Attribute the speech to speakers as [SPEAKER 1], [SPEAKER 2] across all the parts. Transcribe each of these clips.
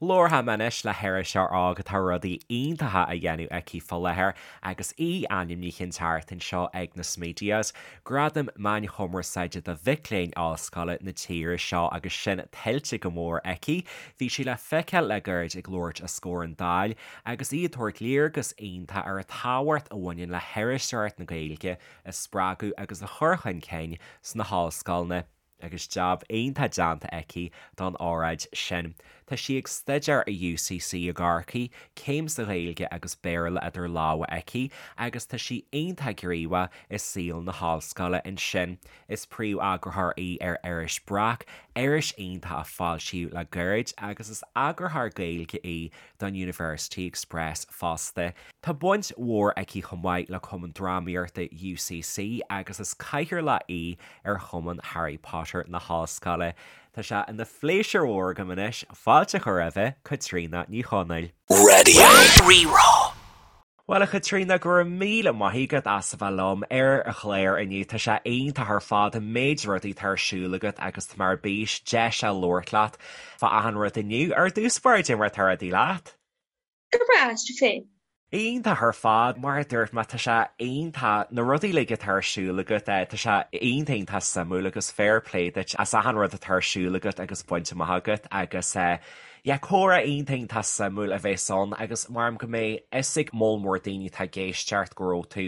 [SPEAKER 1] Labharfaidh mé anois le hiriseoir óg atá rudaí iontacha á dhéanamh aici fá láthair agus í ainmnithe an tseachtain seo ag na Smedias, Gradaim Meáin Chumarsáide do mhic léinn ollscoile na tíre seo agus sin tuillte go mór aici. Bhí sí le feiceáil le gairid ag labhairt os comhair an Dáil agus í ag tabhairt léargas iontach ar an tábhacht a bhaineann le hiriseoireacht na Gaeilge a spreagadh agus a chur chun cinn sna hollscoileanna. agus jab iontach déanta aici don óráid sin. Tá sí ag staidéar i UCC i gCorcaigh, céim sa Ghaeilge agus Béarla idir lámha aici agus tá sí iontach gníomhach i saol na hollscoile ansin. Is príomh-eagarthóir í ar iris Breac, iris iontach a foilsíodh le gairid agus is eagarthóir Gaeilge í don University Express fosta. Tá baint mhór aici chomh maith le Cumann Drámaíochta UCC agus is cathaoirleach í ar Chumann Harry Potter na hOllscoile. Tá sé ina phléisiúr mhór agam anois fáilte a chur roimhe, Caitríona Ní Chonaill.
[SPEAKER 2] Radio Rí-Rá.
[SPEAKER 1] Bhuel, a Chaitríona, go raibh míle maith agat as a bheith liom ar an chlár inniu. Tá sé iontach ar fad an méid rudaí atá ar siúl agat agus tá mé ar bís deis a labhairt leat fá achan rud inniu. Ar dtús báire, cad é mar atá rudaí leat?
[SPEAKER 3] Go breá, is tú féin?
[SPEAKER 1] Iontach ar fad, mar a dúirt mé, tá sé iontach, na rudaí uilig atá ar siúl agat, tá sé iontach iontach suimiúil agus fair play duit as achan rud atá ar siúl agat agus bainte amach agat agus yeah, comhrá iontach iontach suimiúil a bheas ann agus maram go mbeidh fhios ag moll mór daoine atá ag éisteacht go raibh tú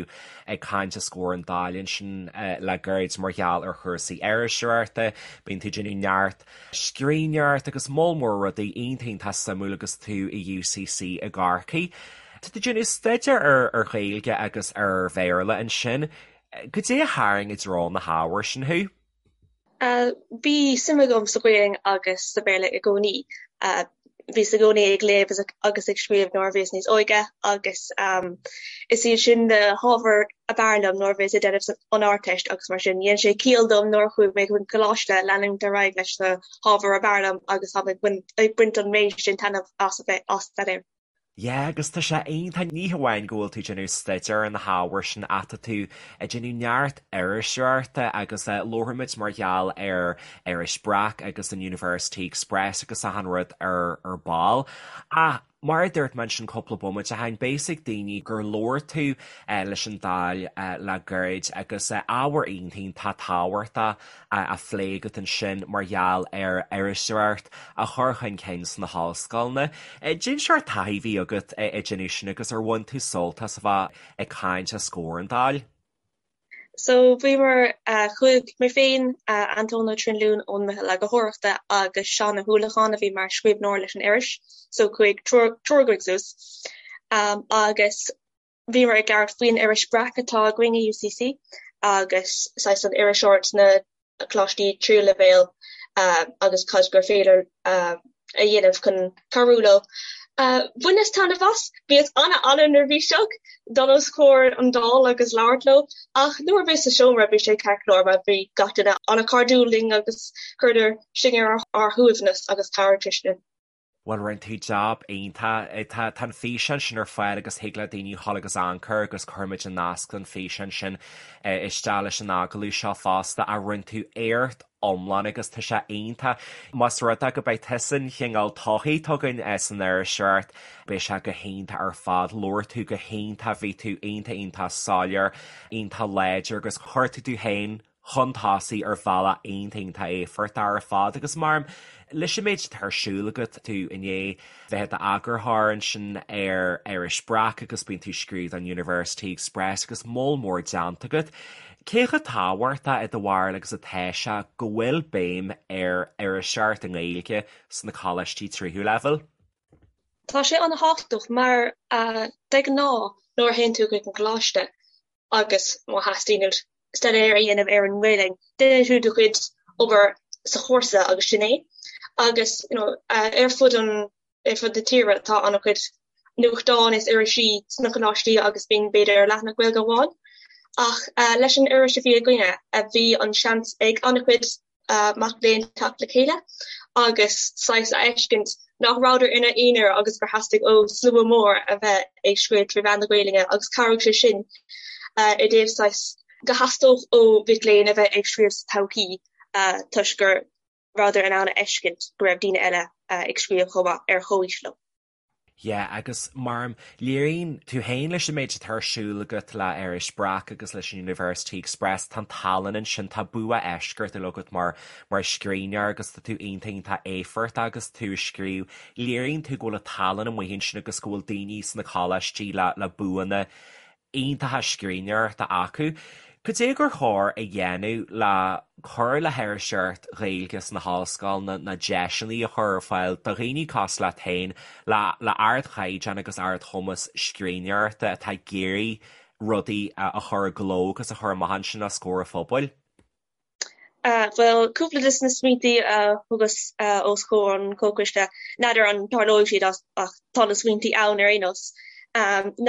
[SPEAKER 1] ag caint os comhair an Dáil ansin le gairid mar gheall ar chúrsaí iriseoireachta, bíonn tú ag déanamh neart scríbhneoireacht agus moll mór rudaí iontach iontach suimiúil agus tú i UCC i gCorcaigh. Tá tú ag déanamh staidéar ar ar Ghaeilge agus ar Bhéarla ansin. Goidé a tharraing i dtreo na hábhair sin thú?
[SPEAKER 3] Bhí suim agam sa Ghaeilge agus sa Bhéarla i gcónaí. Bhíos i gcónaí ag léamh agus ag scríobh nuair a bhíos níos óige agus is iad sin na hábhair ab fhearr liom nuair a bhíos ag déanamh an Ardteist agus mar sin dhein sé ciall dom nuair a chuaigh mé chun coláiste leanúint ar aghaidh leis na hábhair ab fhearr liom agus táim ag baint an méid sin taitneamh as a bheith á staidéar.
[SPEAKER 1] Yeah, agus tá sé iontach, ní hamháin go bhfuil tú ag déanamh staidéar ar na hábhair sin ach tá tú ag déanamh neart iriseoireachta agus labharfaimid mar gheall ar iris Breac agus an University Express agus achan rud ar ar ball. Ach mar a dúirt mé ansin cúpla bomaite ó shin, beidh fhios ag daoine gur labhair tú leis an Dáil le gairid agus ábhar iontach iontach tábhachtach á phlé agat ansin mar gheall ar iriseoireacht a chur chun cinn sna hollscoileanna. Cén seort taithí a bhí agat ag déanamh sin agus ar bhain tú sult as a bheith ag caint os comhair an Dáil?
[SPEAKER 3] So bhíomar, chuaigh mé féin, Antóin Ó Trinlúin ón Meitheal Eagarthóireachta agus Seán Ó hUallacháin a bhí mar scríbhneoir leis an iris, so chuaigh triúr againn suas agus Bhíomar ag labhairt faoin iris Breac atá againn i UCC agus saghas an iriseoireacht sna coláistí tríú leibhéal agus cad gur féidir a dhéanamh chun cabhrú leo. Bhaineas taitneamh as. Bhíos an-an-neirbhíseach dul os comhair an Dáil agus labhairt leo ach nuair a bhíos sa seomra bhí sé ceart go leor mar bhí gach duine an-chairdiúil linn agus chuireadar sinn ar ár shuaimhneas agus chabhraigh sé sin.
[SPEAKER 1] Bhuel, rinne tú jab iontach. Tá an físeán sin ar fáil agus thig le daoine dhul agus amharc air agus cuirfimid an nasc don físeán sin isteach leis an agallamh seo fosta. Ach rinne tú éacht iomlán agus tá sé iontach. Más rud é go mbeidh tusa an chineál todhchaí atá againn san iriseoireacht, beidh sé go hiontach ar fad. Labhair tú go hiontach, bhí tú iontach iontach soiléir, iontach láidir agus chuir tú tú féin chun tosaigh ar bhealach iontach iontach éifeachtach ar fad agus mar leis an méid atá ar siúl agat, tú i ndiaidh bheith i d'eagarthóir ansin ar iris Breac agus bíonn tú ag scríobh don University Express agus moll mór déanta agat. Cé chomh tábhachtach i do bharúil agus atá sé go bhfuil béim ar iriseoireacht i nGaeilge sna coláistí tríú leibhéal?
[SPEAKER 3] Tá sé an-thábhachtach mar de ghnáth nuair a théann tú chuig an gcoláiste agus má theastaíonn uait staidéar a dhéanamh ar an nGaelainn, déanann tú do chuid obair sa chúrsa agus sin é. Agus you know, ar fud an ar fud na tíre tá an-chuid nuachtáin is irisí sna coláistí agus bíonn b'fhéidir leathanach Gaeilge amháin. Ach leis an iris a bhí againne, bhí an seans ag an-chuid mac léinn teacht le chéile agus saghas a fheiscint nach rabhadar ina n-aonar agus gur theastaigh ó slua mór a bheith ag scríobh trí mheán na Gaelainne agus chabhraigh sé sin i dtaobh saghas go theastódh ó mhic léinn a bheith ag scríobh sa todhchaí toisc gur. rabhadar in ann a fheiscint go raibh daoine eile ag scríobh chomh maith ar chomhaois leo.
[SPEAKER 1] Yeah, agus mar léiríonn tú féin leis an méid atá ar siúl agat le Iris Breac agus leis an University Express, tá an tallann ansin, tá bua eisceachtúil agat mar mar scríbhneoir agus tá tú iontach iontach éifeachtach agus tú ag scríobh. Léiríonn tú go bhfuil an tallann amuigh ansin agus go bhfuil daoine sna coláistí le le buanna iontacha scríbhneoireachta acu. Cad é gur chóir a dhéanamh le cur le hiriseoireacht Ghaeilge sna hollscoileanna ná deiseanna a chur ar fáil do dhaoine cosúil leat féin le le ardchaighdeán agus ardchumas scríbhneoireachta atá ag iarraidh rudaí a chur i gcló agus a chur amach ansin os comhair an phobail?
[SPEAKER 3] Bhuel, cúpla de na smaointí a thugas os comhair an chomhchoiste, n'fheadar an dtarlóidh siad ach tá na smaointí ann ar aon nós,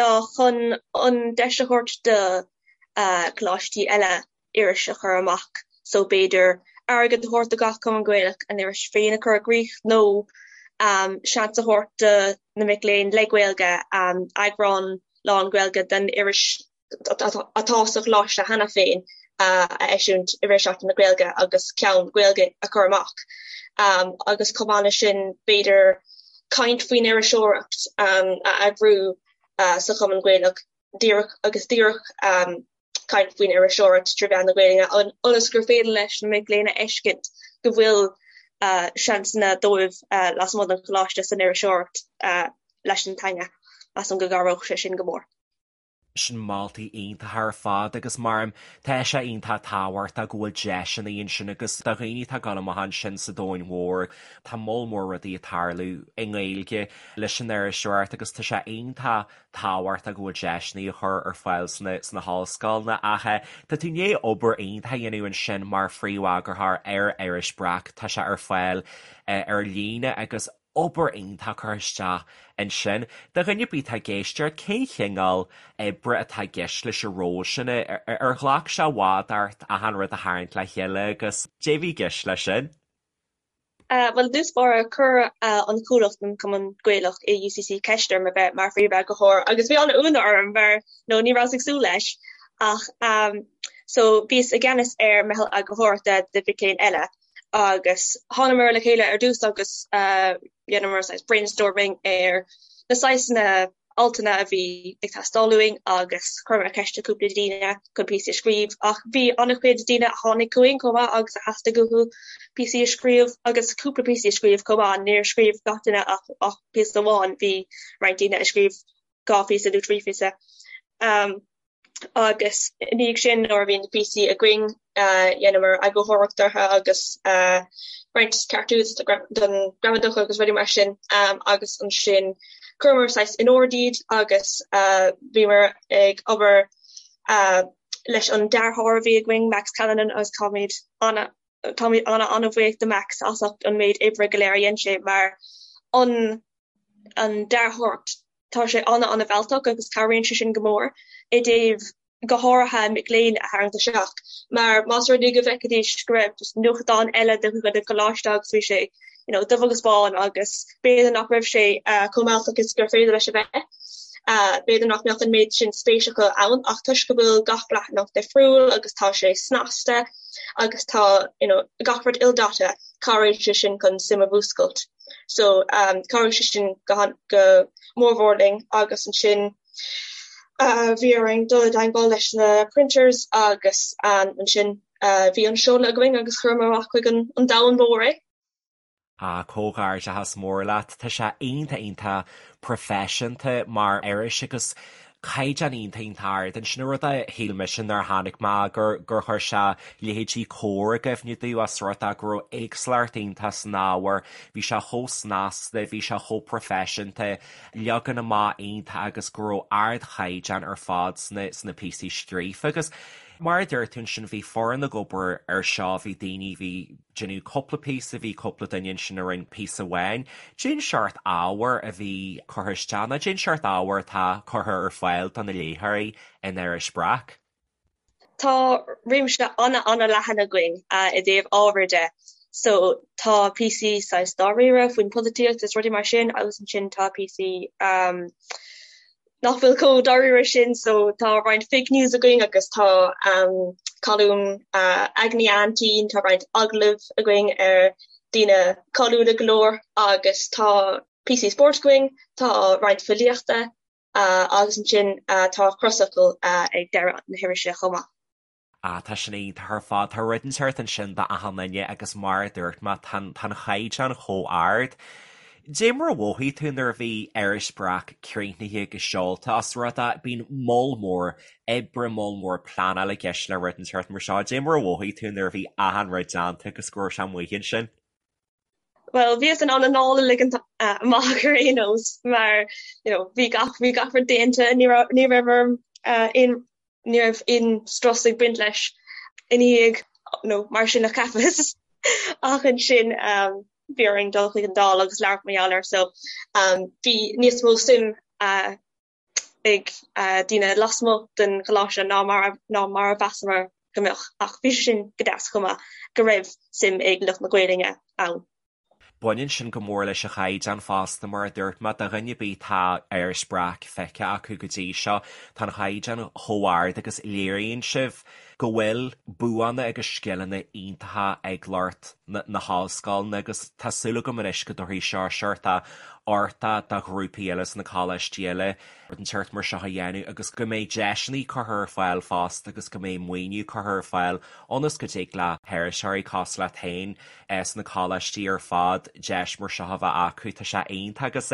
[SPEAKER 3] ná chun an deis a thabhairt do choláistí eile iris a chur amach. So b'fhéidir airgead a thabhairt do gach Cumann Gaelach a n-iris féin a chur i gcrích nó seans a thabhairt do na mic léinn le Gaeilge eagrán lán-Ghaeilge den iris atá sa choláiste cheana féin a eisiúint i rith Seachtain na Gaeilge agus ceann Gaeilge a chur amach. Agus chomh maith leis sin, b'fhéidir caint faoin iriseoireacht a eagrú sa Chumann Gaelach díreach agus díreach caint faoin iriseoireacht trí mheán na Gaeilge ionas gur féidir leis na mic léinn a fheiscint go bhfuil seansanna dóibh lasmuigh den choláiste san iriseoireacht leis an teanga. Measaim go gcabhródh sé sin go mór.
[SPEAKER 1] Sin moltaí iontacha ar fad agus mar tá sé iontach tábhachtach go bhfuil deiseanna ansin agus do dhaoine atá ag dul amach ansin sa domhain mhór tá moll mór rudaí ag tarlú i nGaeilge leis an iriseoireacht agus tá sé iontach tábhachtach go bhfuil deiseanna á chur ar fáil sna sna hollscoileanna ach tá tú i ndiaidh obair iontach a dhéanamh ansin mar phríomheagarthóir ar Iris Breac, tá sé ar fáil ar líne agus obair iontach curtha isteach ansin. Do dhuine ar bith atá ag éisteacht, cén chineál oibre atá i gceist leis an ról sin? Ar ghlac sé i bhfad ort achan rud a tharraingt le chéile agus cad é a bhí i gceist leis sin?
[SPEAKER 3] Bhuel, i dtús báire, chuir an comhlacht, an Cumann Gaelach i UCC ceist orm a bheith mar phríomheagarthóir agus bhí an-ionadh orm mar nó ní rabhas ag súil leis ach so bhíos i gceannas ar meitheal eagarthóireachta de mhic léinn eile agus thánamar le chéile ar dtús agus dheineamar saghas brainstorming ar na saghsanna altanna a bhí ag teastáil uainn agus chuireamar ceist ar cúpla daoine chun píosaí a scríobh ach bhí an-chuid daoine a tháinig chugainn chomh maith agus a theastaigh uathu píosaí a scríobh agus cúpla píosaí a scríobh chomh maith. Níor scríobh gach duine ach ach píosa amháin, bhí roinnt daoine a scríobh 2 phíosa nó 3 phíosa. Agus i ndiaidh sin nuair a bhí na píosaí againn dheineamar eagarthóireacht orthu agus roinnt ceartú don ghramadach agus rudaí mar sin agus ansin chuireamar saghas in ord iad agus bhíomar ag obair leis an dearthóir a bhí againn, Max Callanan, agus táimid ana táimid ana ana-bhuíoch do Max as ucht an méid oibre go léir a dhein sé mar an an dearthóireacht Tá sé an-an-mhealltach agus cabhraíonn sé sin go mór i dtaobh go háirithe mic léinn a tharraingt isteach mar más rud é go bhfeicfidís go raibh just nuachtán eile de chuid an choláiste agus bhí sé you know dubh agus bán agus b'fhéidir nach raibh sé chomh mealltach is gur féidir leis a bheith. B'fhéidir nach mbeadh an méid sin spéis acu ann ach toisc go bhfuil gach leathanach difriúil agus tá sé snasta agus tá you know gach rud ildaite, cabhraíonn sé sin chun suim a mhúscailt. So chabhraigh sé sin go go mórmhór linn agus ansin bhí orainn dul i dteagmháil leis na printers agus ansin bhí an seoladh againn agus chuireamar amach chuig an an domhan mór é.
[SPEAKER 1] Ah, comhghairdeachas mór leat. Tá sé iontach iontach proifisiúnta mar iris agus caighdeán iontach iontach ard ansin. An rud a shíl mise nuair a chonaic mé gur gur chuir sé leithéidí Comhar i gcuimhne domh as rud é go raibh éagsúlacht iontach san ábhar, bhí sé chomh snasta, bhí sé chomh proifisiúnta, leagan amach iontach agus go raibh ardchaighdeán ar fad sna sna píosaí scríofa agus mar a deir tú ansin bhí foireann ag obair ar seo, bhí daoine, bhí. déanamh cúpla píosa, bhí cúpla duine ansin a rinne píosa amháin. Cén seort ábhair a bhí curtha isteach nó cén seort ábhair atá curtha ar fáil do na léitheoirí in Iris Breac?
[SPEAKER 3] Tá réimse an-an-leathan againn i dtaobh ábhair de. So tá píosaí saghas dáiríre faoin polaitíocht is rudaí mar sin agus ansin tá píosaí nach bhfuil chomh dáiríre sin so tá roinnt fake news againn agus tá colún aigne Aintín, tá roinnt agallamh againn ar. daoine cáiliúla go leor agus tá píosaí spóirt againn, tá roinnt filíochta agus ansin tá crosfhocal ag deireadh na hirise chomh maith.
[SPEAKER 1] Ah, tá sin iontach ar fad. Tá rud inteacht ansin d'achan duine agus mar a dúirt mé, tá an caighdeán chomh ard. Dé mar a mhothaigh tú nuair a bhí Iris Breac críochnaithe agus seolta os rud é, bíonn moll mór oibre, moll mór pleanála i gceist le rud inteacht mar seo. Dé mar a mhothaigh tú nuair a bhí achan rud déanta agus go raibh sé amuigh ansin?
[SPEAKER 3] Bhuel, bhíos in ann anáil a ligean amach ar aon nós mar you know bhí gach bhí gach rud déanta, ní raibh ní raibh orm aon ní raibh aon strus ag baint leis ina dhiaidh nó mar sin a cheapas ach ansin bhí orainn dul chuig an Dáil agus labhairt mar gheall air so bhí níos mó suim ag daoine lasmuigh den choláiste ná mar ná mar a mheasamar go mbeadh, ach bhí sé sin go deas chomh maith go raibh suim ag lucht na Gaelainne ann.
[SPEAKER 1] Baineann sin go mór leis an chaighdeán fosta, mar a dúirt mé, do dhuine ar bith atá Iris Breac feicthe acu go dtí seo, tá an chaighdeán chomh ard agus léiríonn sibh go bhfuil buanna agus scileanna iontacha ag lucht na hollscoileanna agus tá súil agam anois go dtabharfaidh seo seort uchtach do ghrúpaí eile sna coláistí eile rud inteacht mar seo a dhéanamh agus go mbeidh deiseanna curtha ar fáil fosta agus go mbeidh maoiniú curtha ar fáil ionas go dtig le hiriseoirí cosúil leat féin sna coláistí ar fad deis mar seo a bheith acu. Tá sé iontach agus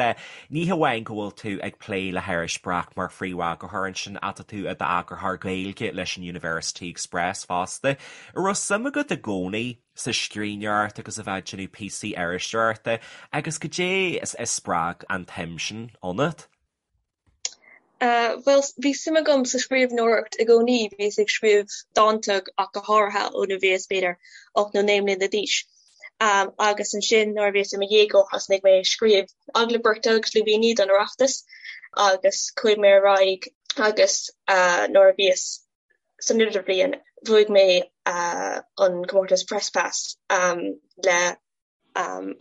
[SPEAKER 1] ní hamháin go bhfuil tú ag plé le hIris Breac mar phríomheagarthóir ansin ach tá tú i d'eagarthóir Gaeilge leis an University Express fosta. An raibh suim agat i gcónaí sa scríbhneoireacht agus a bheith ag déanamh píosaí iriseoireachta agus goidé a spreag an tsuim sin ionat?
[SPEAKER 3] Bhuel, bhí suim agam sa scríbhneoireacht i gcónaí, bhíos ag scríobh dánta ach go háirithe ó nuair a bhíos b'fhéidir 8 nó 9 mbliana d'aois. Agus ansin nuair a bhíos i mo dhéagóir thosnaigh mé ag scríobh agallaimh beirte agus lúibíní don Oireachtas agus chuaigh mé ar aghaidh agus nuair a bhíos san idirbhliain bhuaigh mé an comórtas Press Pass le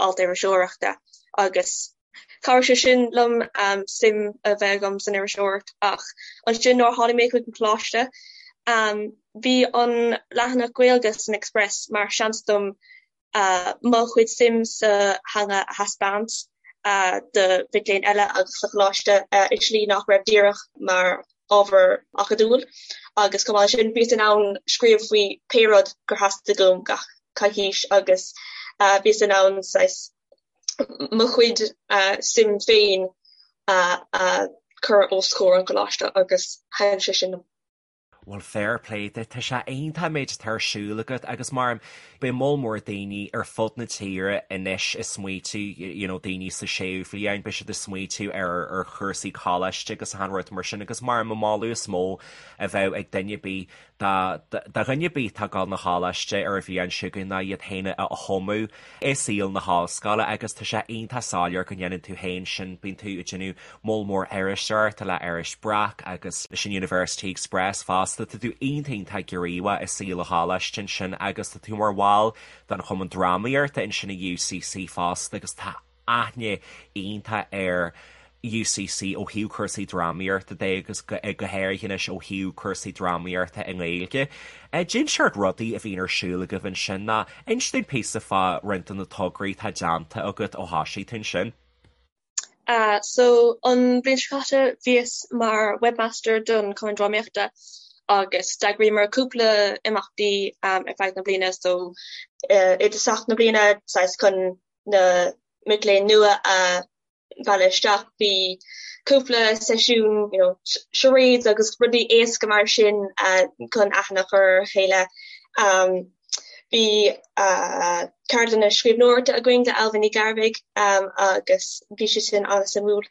[SPEAKER 3] alt iriseoireachta agus chabhraigh sé sin liom suim a bheith agam san iriseoireacht ach ansin nuair a tháinig mé chuig an choláiste bhí an leathanach Gaeilge san Express mar seans dom mo chuid suim sa theanga a thaispeáint do mhic léinn eile agus sa choláiste i slí nach raibh díreach mar ábhar acadúil agus chomh maith leis sin bhíos in ann scríobh faoi pé rud gur theastaigh uaim gach coicís agus bhíos in ann saghas mo chuid suim féin a chur os comhair an choláiste agus thaitin sé sin liom.
[SPEAKER 1] Bhuel, fair play duit, tá sé iontach an méid atá ar siúl agat agus mar beidh moll mór daoine ar fud na tíre anois ag smaoitiú, you know, daoine sa séú bhliain, beidh siad ag smaoitiú ar ar chúrsaí coláiste agus achan rud mar sin agus mar an moladh is mó a bheadh ag duine ar bith do dhuine ar bith atá ag dul 'na choláiste ar an bhliain seo chugainn ná iad féin a thumadh i saol na hollscoile agus tá sé iontach soiléir go ndéanann tú féin sin, bíonn tú ag déanamh moll mór iriseoireachta le Iris Breac agus leis an University Express fosta, tá tú iontach iontach gníomhach i saol an choláiste ansin agus tá tú mar bhall den Chumann Drámaíochta ansin i UCC fosta agus tá aithne iontach ar UCC ó thaobh cúrsaí drámaíochta de agus go háirithe anois ó thaobh cúrsaí drámaíochta i nGaeilge. Cén seort rudaí a bhíonn ar siúl agaibh ansin ná inis dúinn píosa fá roinnt de na tograí atá déanta agat ó thosaigh tú ansin.
[SPEAKER 3] So an bhliain seo caite bhíos mar webmaster don Chumann Drámaíochta agus d'eagraíomar cúpla imeachtaí ar feadh na bliana so i dtosach na bliana saghas chun na mic léinn nua a mhealladh isteach. Bhí cúpla seisiún you know charades agus rudaí éasca mar sin chun aithne a chur ar a chéile. Bhí ceardlanna scríbhneoireachta againn le Ailbhe Ní Ghearbhuigh agus bhí sé sin an-suimiúil.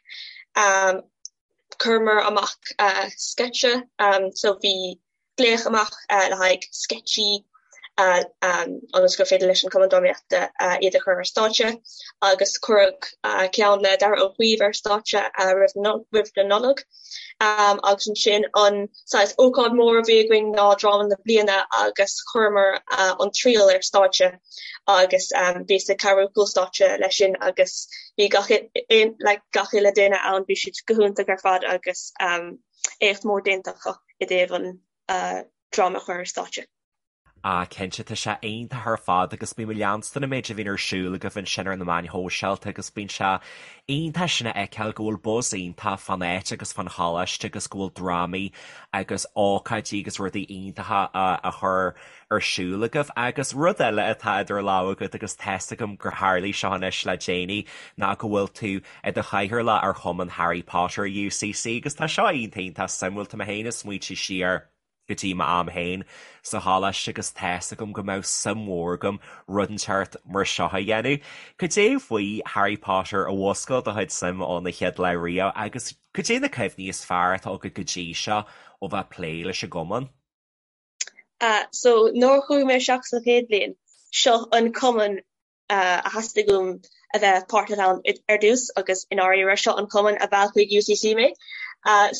[SPEAKER 3] Chuireamar amach sceitse so bhí glaoch amach le haghaidh sceitsí ionas gur féidir leis an Chumann Drámaíochta iad a chur ar stáitse agus cuireadh ceann le Daragh Ó Caoimh ar stáitse roimh na Nollag agus ansin an saghas ócáid mór a bhí againn ná dráma na bliana agus chuireamar an Triail ar stáitse agus bhíos ag cabhrú cúl stáitse leis sin agus bhí gach like gach uile duine ann bhí siad go hiontach ar fad agus éacht mór déanta acu i dtaobh an dráma a chur ar stáitse.
[SPEAKER 1] Ah cinnte, tá sé iontach ar fad agus bím ag leanstan an méid a bhíonn ar siúl agaibh ansin ar na meáin shóisialta agus bíonn sé iontach sin a fheiceáil go bhfuil buzz iontach fán áit agus fán choláiste agus go bhfuil drámaí agus ócáidí agus rudaí iontacha á chur ar siúl agaibh. Agus rud eile atá idir lámha agat agus tá's agam gur tharlaigh seo anois le déanaí ná go bhfuil tú i do chathaoirleach ar Chumann Harry Potter UCC agus tá seo iontach iontach suimiúil, tá mé féin ag smaointiú siar go dtí m'am féin sa choláiste agus tá's agam go mbeadh suim mhór agam rud inteacht mar seo a dhéanamh. Cad é faoi Harry Potter a mhúscail do chuid suim ón chéad lá riamh agus cad é na cuimhní is fearr atá agat go dtí seo ó bheith ag plé leis an gcumann?
[SPEAKER 3] So nuair a chuaigh mé isteach sa chéad bhliain, seo an cumann a theastaigh uaim a bheith páirteach ann ar dtús agus i ndáiríre seo an cumann a mheall chuig UCC mé.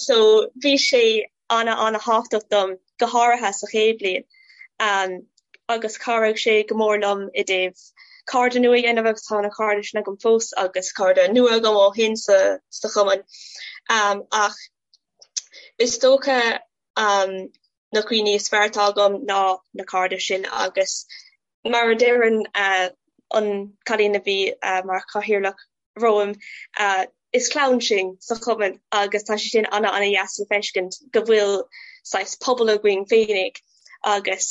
[SPEAKER 3] So bhí sé ana ana thábhachtach dom go háirithe sa chéad bhliain agus chabhraigh sé go mór liom i dtaobh cairde nua a dhéanamh agus tá na cairde sin agam fós agus cairde nua agam ó shin sa sa chumann. Ach is dócha na cuimhní is fearr atá agam ná na cairde sin agus Mar a deireann an cailín a bhí mar chathaoirleach romham, is clann sinn sa chumann agus tá sé sin ana ana dheas le feiscint go bhfuil saghas pobal againn féinig agus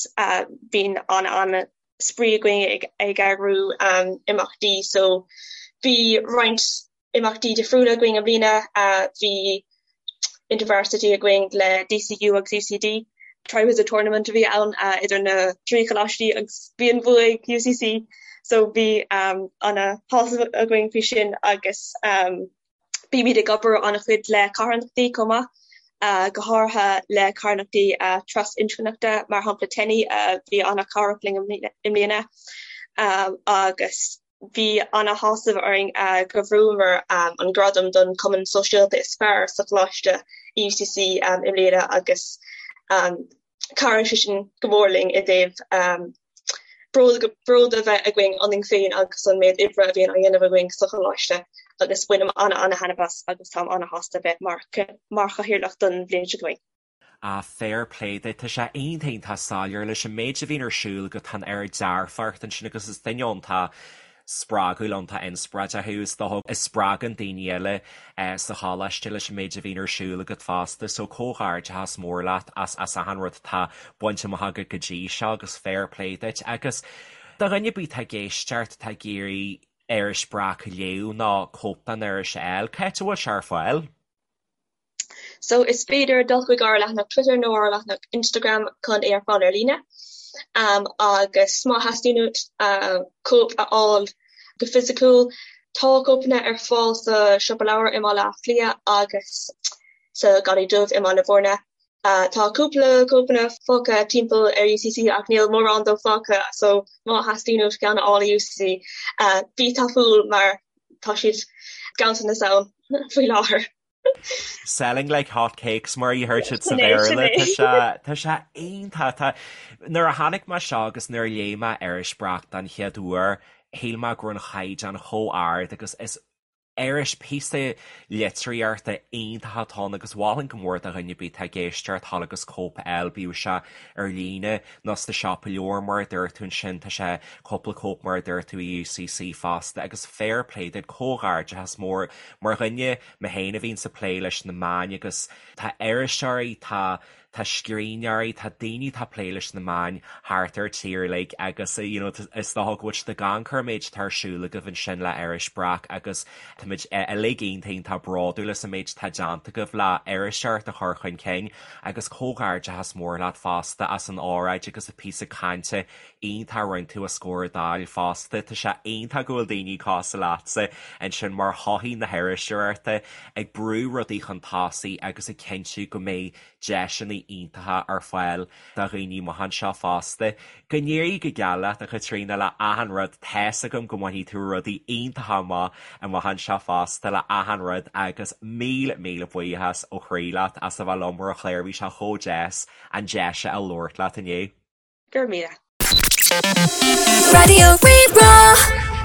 [SPEAKER 3] bíonn ana ana spraoi againn ag ag eagrú imeachtaí so bhí roinnt imeachtaí difriúla againn i mbliana. Bhí InterVarsity againn le DCU agus UCD. Triwizard Tournament a bhí ann idir na trí choláistí agus bhí an bua ag UCC so bhí ana shásamh againn faoi sin agus bímid ag obair ana-chuid le carthanachtaí chomh maith, go háirithe le carthanachtaí trasinscneachta mar shampla TENI a bhí ana-chabhrach linn i mbliana agus Bhí ana-shásamh orainn go bhfuaireamar an gradam don Chumann Sóisialta is fearr sa choláiste i UCC i mbliana agus chabhraigh sé sin go mór linn i dtaobh bród bród a bheith againn ionainn féin agus an méid oibre a bhíonn á dhéanamh againn sa choláiste agus bainim ana-ana-thaitneamh as agus táim ana-shásta bheith mar mar chathaoirleach don bhliain seo chugainn.
[SPEAKER 1] Ah, fair play duit, tá sé iontach iontach soiléir leis an méid a bhíonn ar siúl agat, tá an oiread dearfacht ansin agus is duine iontach spreagúil, iontach inspioráideach thú, is dócha, a spreagann daoine eile sa choláiste leis an méid a bhíonn ar siúl agat fosta, so comhghairdeachas mór leat as as achan rud atá bainte amach agat go dtí seo agus fair play duit. Agus do dhuine ar bith atá ag éisteacht, atá ag iarraidh iris Breac a léamh nó cóip den iris a fháil, cá háit a bhfuil sé ar fáil?
[SPEAKER 3] So is féidir dul chuig ár leathanach Twitter nó ár leathanach Instagram chun é a fháil ar líne. Um, agus má theastaíonn uait uh, cóip a fháil go fisiciúil, tá cóipeanna ar fáil sa siopa leabhar i mBaile Átha Cliath agus sa Gharraí Dubh i mBaile Bhúirne. Uh, tá cúpla cóipeanna fágtha timpeall ar UCC ach níl mórán dóibh fágtha, so má theastaíonn uait ceann a fháil i UCC, uh, bí tapúil mar tá siad ganntanas ann faoi láthair.
[SPEAKER 1] Selling like hot cakes mar a deir siad sa Bhéarla tá sé tá sé iontach tá nuair a chonaic mé seo agus nuair a léigh mé iris Breac den chéad uair shíl mé go raibh an chaighdeán chomh ard agus is iris píosa litríochta iontach atá ann agus mholfainn go mór do dhuine ar bith atá ag éisteacht dhul agus cóip a fháil bíodh sé ar líne nó sa siopa leabhar mar a dúirt tú ansin, tá sé cúpla cóip mar a dúirt tú i UCC fosta agus fair play duit, comhghairdeachas mór mar dhuine mé féin a bhíonns ag plé leis na meáin agus tá iriseoirí, tá tá scríbhneoirí, tá daoine atá ag plé leis na meáin thart ar tír uilig agus you know is dócha go bhfuil siad ag amharc ar an méid atá ar siúl agaibh ansin le Iris Breac agus táimid uilig iontach iontach bródúil as an méid atá déanta agaibh le iriseoireacht a chur chun cinn Agus comhghairdeachas mór leat fosta as an óráid agus an píosa cainte iontach a rinne tú os comhair an Dáil fosta. Tá sé iontach go bhfuil daoine cosúil leatsa ansin mar thothaí na hiriseoireachta ag brú rudaí chun tosaigh agus ag cinntiú go mbeidh deiseanna iontacha ar fáil do dhaoine amach anseo fosta. Go n-éirí go geal leat, a Chaitríona, le achan rud. Tá's agam go mbainfidh tú rudaí iontacha amach amach anseo fosta le achan rud agus míle, míle buíochas ó chroí leat as a bheith liom ar an chlár. Bhí sé chomh deas an deis a labhairt leat inniu.
[SPEAKER 3] Go raibh míle.
[SPEAKER 2] Raidió Rí-Rá.